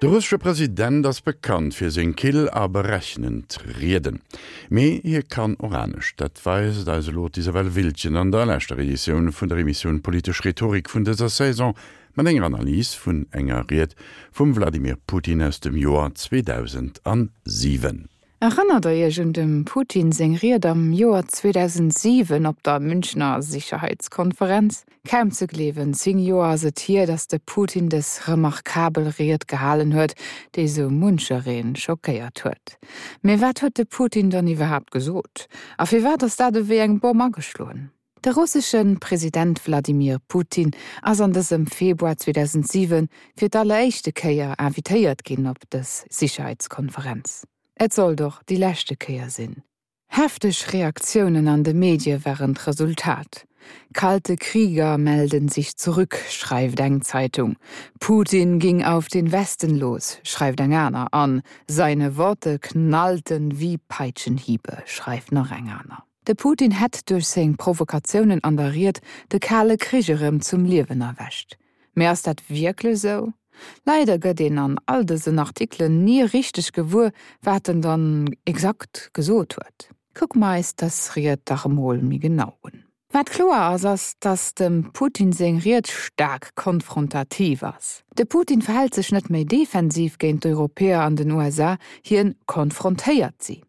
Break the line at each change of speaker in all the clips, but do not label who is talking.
De russesche President ass bekannt fir seng kill a berechnend Rieden. Mee hie kann och anescht. Dat weist eis elo d'Isabelle Wiltgen an der leschter Editioun vun der Emissioun Politesch Rhetorik vun dëser Saison mat enger Analys vun enger Ried vum Wladimir Putin aus dem Joer 2007.
Erënnert der iech un dem Putin seng Ried am Joer 2007 op der Münchner Sicherheitskonferenz? Kaum ze gleewen, 10 Joer ass et hier, datt de Putin dës remarkabel Ried gehalen huet, déi sou muncheree schockéiert huet. Mee wat huet de Putin dann iwwerhaapt gesot? A firwat ass dat ewéi eng Bomm ageschloen? De russesche President Wladimir Putin ass an dësem Februar 2007 fir d'alleréischte Kéier invitéiert ginn op dës Sicherheitskonferenz. Et sollt och déi leschte Kéier sinn. Hefteg Reaktiounen an de Medie waren d'Resultat. Kalte Krieger melden sich zurück, schreift eng Zeitung. Putin ging auf den Westen los, schreift eng aner an seine Worte knallten wie Peitschenhiebe, schreift nach eng aner. De Putin hätt duerch seng Provokatiounen an der Ried de Kale Krich erëm zum Liewen erwächt. Mee ass dat wierklech esou? Leider gëtt een an all dësen Artikelen ni richteg gewuer, wat en dann exakt gesot huet. Kucke mer eis dës Ried dach emol méi genau un. Wat kloer ass, ass, datt dem Putin seng Ried staark konfrontativ ass. De Putin verhält sech net méi defensiv géint d'Europäer an den USA, hien konfrontéiert si.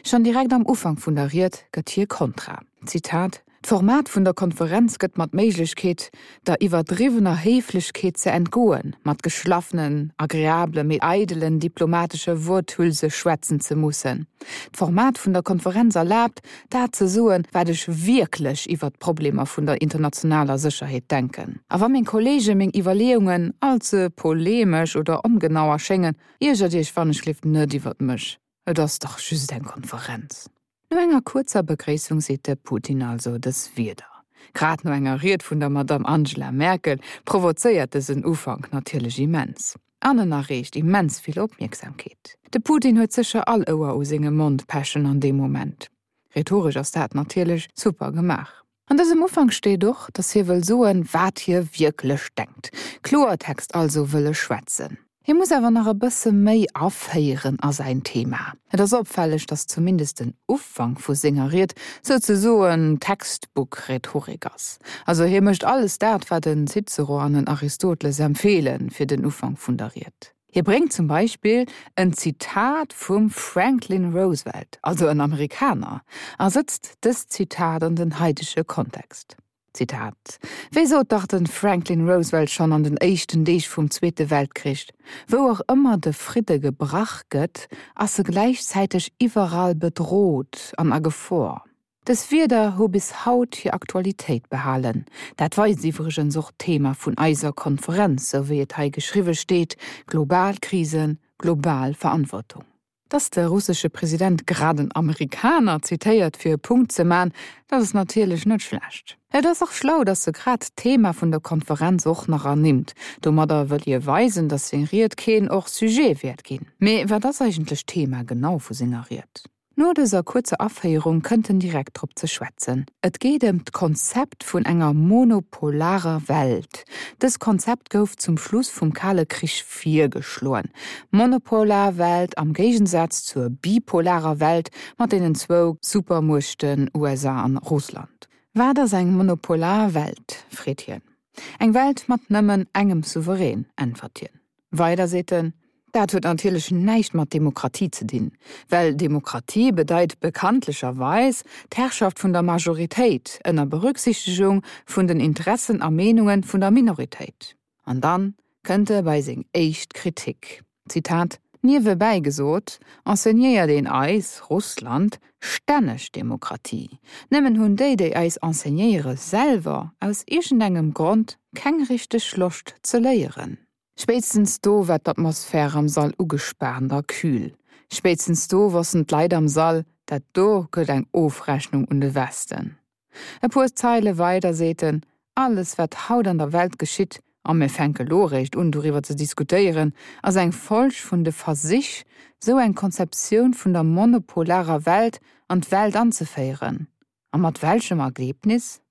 Schonn direkt am Ufank vun der Ried gëtt hie kontra. Zitat, D'Format vun der Konferenz gëtt mer d'Méiglechkeet, der iwwerdriwwener Héiflechkeet ze entgoen, mat geschlaffenen, agreabele mee eidelen diplomatesche Worthülse schwätzen ze mussen. D'Format vun der Konferenz erlaabt, dat ze soen, wat ech wierklech iwwert d'Problemer vun der internationaler Sécherheet denken. A wa meng Kollege meng Iwwerleeungen all ze polemesch oder ongenau erschéngen, iergert Iech wannechgelift net iwwert mech. Et ass dach just eng Konferenz. No enger kuerzer Begréissung seet de Putin also dës Wierder. Grad no enger Ried vun der Madamm Angela Merkel provozéiert dësen Ufank natierlech immens. An en erreecht immens vill Opmierksamkeet. De Putin huet sécher all Ouer u sengem Mond pechen an deem Moment. Rhetoresch ass dat natierlech super gemaach. An dësem Ufank steet och, datt hie wëll soen, wat hie wierklech denkt. Kloertext also wëll e schwätzen. Hie muss awer nach e bësse méi aféieren a säin Thema. Et ass opfälleg, datt zumindest den Ufank vu senger Ried souzesoen Textbook-Rhetorik ass. Also hie mécht alles dat, wat en Cicero an en Aristoteles empfeele fir den Ufank vun der Ried. Hie bréngt zum Beispill en Zitat vum Franklin Roosevelt, also en Amerikaner, a sëtzt dëst Zitat an den haidege Kontext. Zitat, Wéi sot dach de Franklin Roosevelt schonn an den éischten Deeg vum Zweete Weltkrich, Wou och ëmmer de Fridde gebrach gëtt, ass e gläichzäiteg iwwerall bedrot an a Gefor. Dës Wierder hu bis haut hir Aktualitéit behalen. Dat weist iwwregens och d'Thema vun eiser Konferenz, sou wéi et hei geschriwwe steet, Global Krisen, global Verantwortung. Dass de russesche President grad en Amerikaner zitéiert fir e Punkt ze man, dat ass natierlech net schlecht. Et ass och schlau, dass e grad d'Thema vun der Konferenz och nach ernimmt. Domadder wëll hie weisen, dass seng Ried keen hors sujet wäert ginn. Mee wat ass eigentlech d'Thema genau vu senger Ried? No dëser kuerzer Aféierung kënnt en direkt drop ze schwätzen. Et geet ëm d'Konzept vun enger monopolarer Welt. Dës Konzept gouf zum Schluss vum Kale Krich virgeschloen. Monopolar Welt am Géigensaz zur bipolarer Welt mat deenen zwou Supermuechten USA an Russland. Wat ass eng monopolar Welt? freet hien. Eng Welt mat nëmmen engem Souverän, äntwert hien. Weider seet en, Dat huet natierlech näischt mat Demokratie ze dinn, well Demokratie bedeit bekanntlecherweis d'Herrschaft vun der Majoritéit ënner Berücksichtegung vun den Interessen a Meenunge vun der Minoritéit. An dann kënnt e bei seng éischt Kritik, Zitat, Niewebäi gesot, enseignéiert een eis, Russland, stänneg Demokratie. Nëmmen hunn déi, déi eis enseignéiere selwer aus iergendengem Grond keng richteg Loscht ze léieren. Spéitstens do war d'Atmosphär am Sall ugespaant a kühl. Spéitstens do wossten d'Leit am Sall, dat do gëtt eng Ofrechnung un de Westen. E puer Zeile weider seet en, Alles wat haut an der Welt geschitt, a mir fänke lo eréischt un doriwwer ze diskutéieren, ass eng Folg vun de Versich, sou eng Konzeptioun vun der monopolarer Welt an d'Welt anzeféieren. A mat welchem Ergebnis?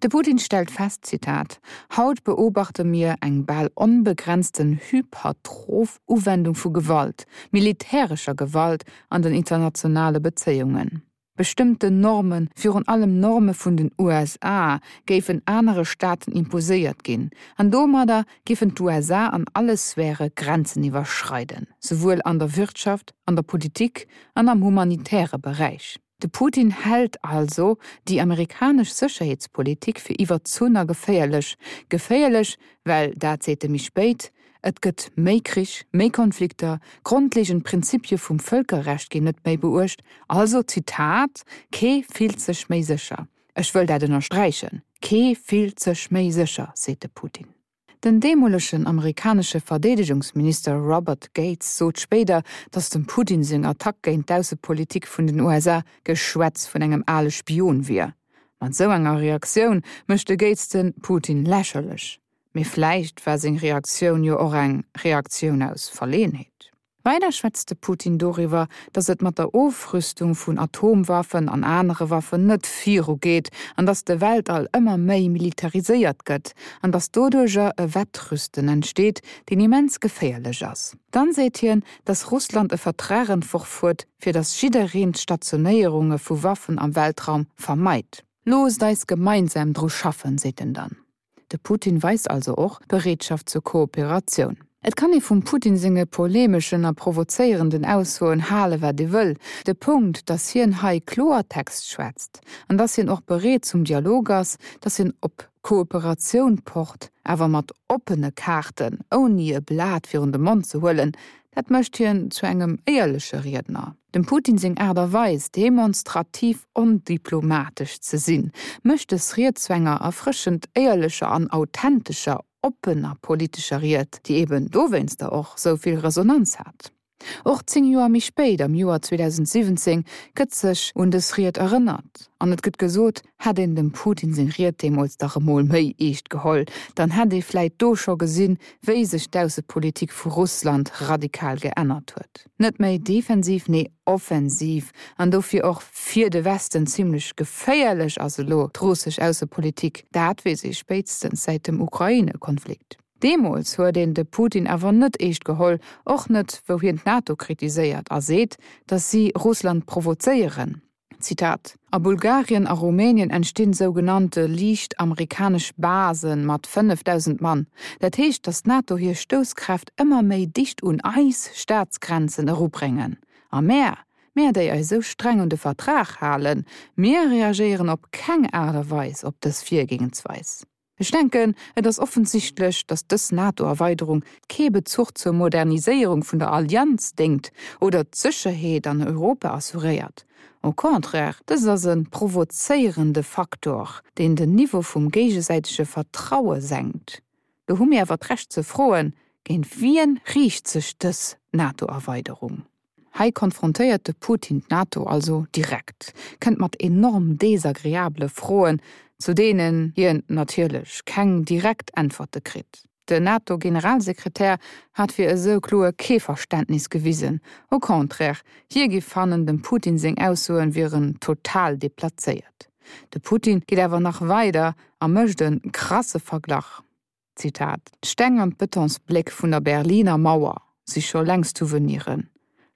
De Putin stellt fest, Zitat, Haut beobachte mir eng bal onbegrenzten hypertroph Uwendung vu Gewalt, militärescher Gewalt an den internationale Bezéiungen. Bestëmmten Normen, virun allem Norme vun den USA, géifen anere Staaten imposéiert ginn, an domadder géifen d'USA an alle Sphäre Grenzen iwwerschreiden, souwuel an der Wirtschaft, an der Politik an am humanitäre Beräich. De Putin hält also déi amerikanesch Sécherheetspolitik fir iwwerzunn a geféierlech. Geféierlech, well, dat seet e méi spéit, Et gëtt méi Krich, méi Konflikter, grondlegend Prinzipie vum Vëlkerrecht ginn net méi beuecht. Also, Zitat, Kee fillt sech méi sécher. Ech wëll dat ënnersträichen, Kee fillt sech méi sécher, seet de Putin. Den deemolegen amerikanesche Verdeedegungsminister Robert Gates sot spéider, datt dem Putin seng Attack géint d'Aussepolitik vun den USA Geschwätz vun engem ale Spion wier. Mat esou enger Reaktioun mécht de Gates de Putin lächerlech. Mee vläicht war seng Reaktioun jo och eng Reaktioun aus Verleeënheet. Weider schwätzt de Putin doriwwer, datt et mat der Ofrüstung vun Atomwaffen an anere Waffen net viru geet an datt de Weltall ëmmer méi militariséiert gëtt an datt doduercher e Wettrüsten entsteet, deen immens geféierlech ass. Dann seet hien, datt Russland e Vertrag entworf huet, fir datt jiddereen d'Stationéierunge vu Waffen am Weltraum vermeit. Loosst eis gemeinsam dru schaffen, seet en dann. De Putin weist also och Bereetschaft zur Kooperatioun. Et kann ee vum Putin senge polemeschen a provozéierenden Aussoen hale wat ee wëll, de Punkt, datt hien hei Kloertext schwätzt an datt hien och bereet zum Dialog ass, datt hien op Kooperatioun pocht, awer mat oppene Kaarten, ouni e Blat virun de Mond ze huelen, dat mécht hien zu engem éierleche Riedner. Dem Putin seng Aart a Weis, demonstrativ ondiplomatesch ze sinn, mécht dës Ried zu enger erfrëschend éierlecher an authentescher, oppener politescher Ried, déi eben dowéinster och sou vill Resonanz hat. Och 10 Joer méi spéit, am Joer 2017, gëtt sech un dës Ried erënnert an et gëtt gesot, Hätt een dem Putin seng Ried deemools dach emol méi eescht geholl, dann hätt ee vläit do scho gesinn, wéi sech d'Aussepolitik vu Russland radikal geännert huet. Net méi defensiv, nee offensiv an dofir och fir de Westen zimlech geféierlech ass elo d'russesch Aussepolitik. Dat weess ee spéitstens säit dem Ukraine-Konflikt. Deemools huet een de Putin awer net eescht geholl, och net wou hien d'NATO kritiséiert a seet, datt si Russland provozéieren. Zitat, A Bulgarien a Rumänien entstinn sougenannte liicht amerikanesch Base mat 5.000 Mann. Dat heescht, datt d'NATO hir Stousskräft ëmmer méi dicht un eis Staatsgrenzen erubréngen. A mär, mär déi eis esou streng un de Vertrag halen, mir reagéieren op keng Aart a Weis op dës Virgehensweis. Ech denken, et ass offensichtlech, datt dës NATO-Erweiderung kee Bezuch zur Moderniséierung vun der Allianz déngt oder d'Sécherheet an Europa assuréiert. Au contraire, dëst ass e provozéierende Faktor, deen den Niveau vum géigesäitege Vertraue senkt. Do hu mir awer d'Recht ze froen, Géint wien riicht sech dës NATO-Erweiderung? Hei konfrontéiert de Putin d'NATO also direkt, kënnt mat enorm desagreabele Froen, zu deenen hien natierlech keng direkt Äntwerte kritt. Den NATO-Generalsekretär hat fir esou kloer kee Verständnis gewisen, au contraire, hie giff fannen, dem Putin seng Aussoen wieren total deplazéiert. De Putin geet awer nach weider a mécht e krasse Verglach. Zitat, D'Steng an d'Betonsbléck vun der Berliner Mauer si scho längst Souveniren.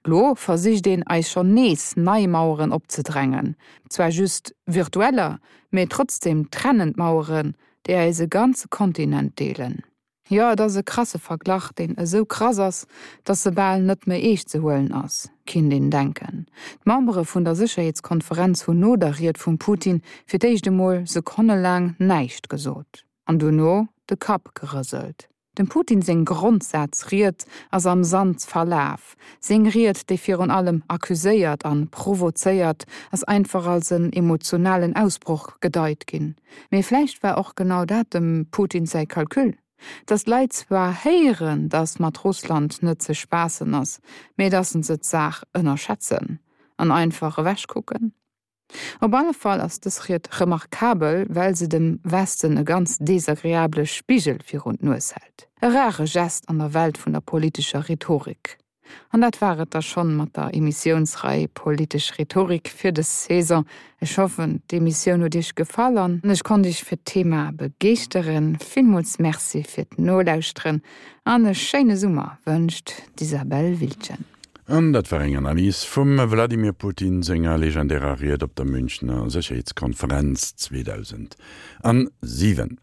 Lo versicht een eis schonn nees nei Maueren opzedrängen, zwar just virtueller, mee trotzdem trennend Maueren, déi eis e ganze Kontinent deelen. Jo, et ass e krasse Verglach, deen esou krass ass, dass e bal net méi eescht ze huelen ass, kinnt een denken. D'Membere vun der Sécherheetskonferenz hunn no der Ried vum Putin fir d'éischt emol sekonnelaang näischt gesot. An dono de Kapp gerëselt. Dem Putin seng Grondsazried ass am Sand verlaf. Seng Ried, déi virun allem accuséiert an provozéiert, ass einfach als en emotionalen Ausbroch gedeit ginn. Mee vläicht war och genau dat dem Putin säi Calcul? Datt d'Leit zwar héieren, datt mat Russland net ze spaassen ass, mee datt se d'Saach ënnerschätzen an einfach ewechkucken? Op alle Fall ass dës Ried remarkabel, well se dem Westen e ganz desagreabele Spigel virun d'Nues hält. E rare Gest an der Welt vun der politescher Rhetorik. An dat war et da schonn mat der Emissiounsrei Politesch Rhetorik fir dës Saison. Ech hoffen, d'Emissioun huet Iech gefall an ech konnt Iech fir d'Thema begeeschteren. Villmools Merci fir d'Nolauschteren an e schéine Summer wënscht d'Isabelle Wiltgen.
An dat war eng Analys vum Wladimir Putin senger legendärer Ried op der Münchner Sécherheetskonferenz 2007.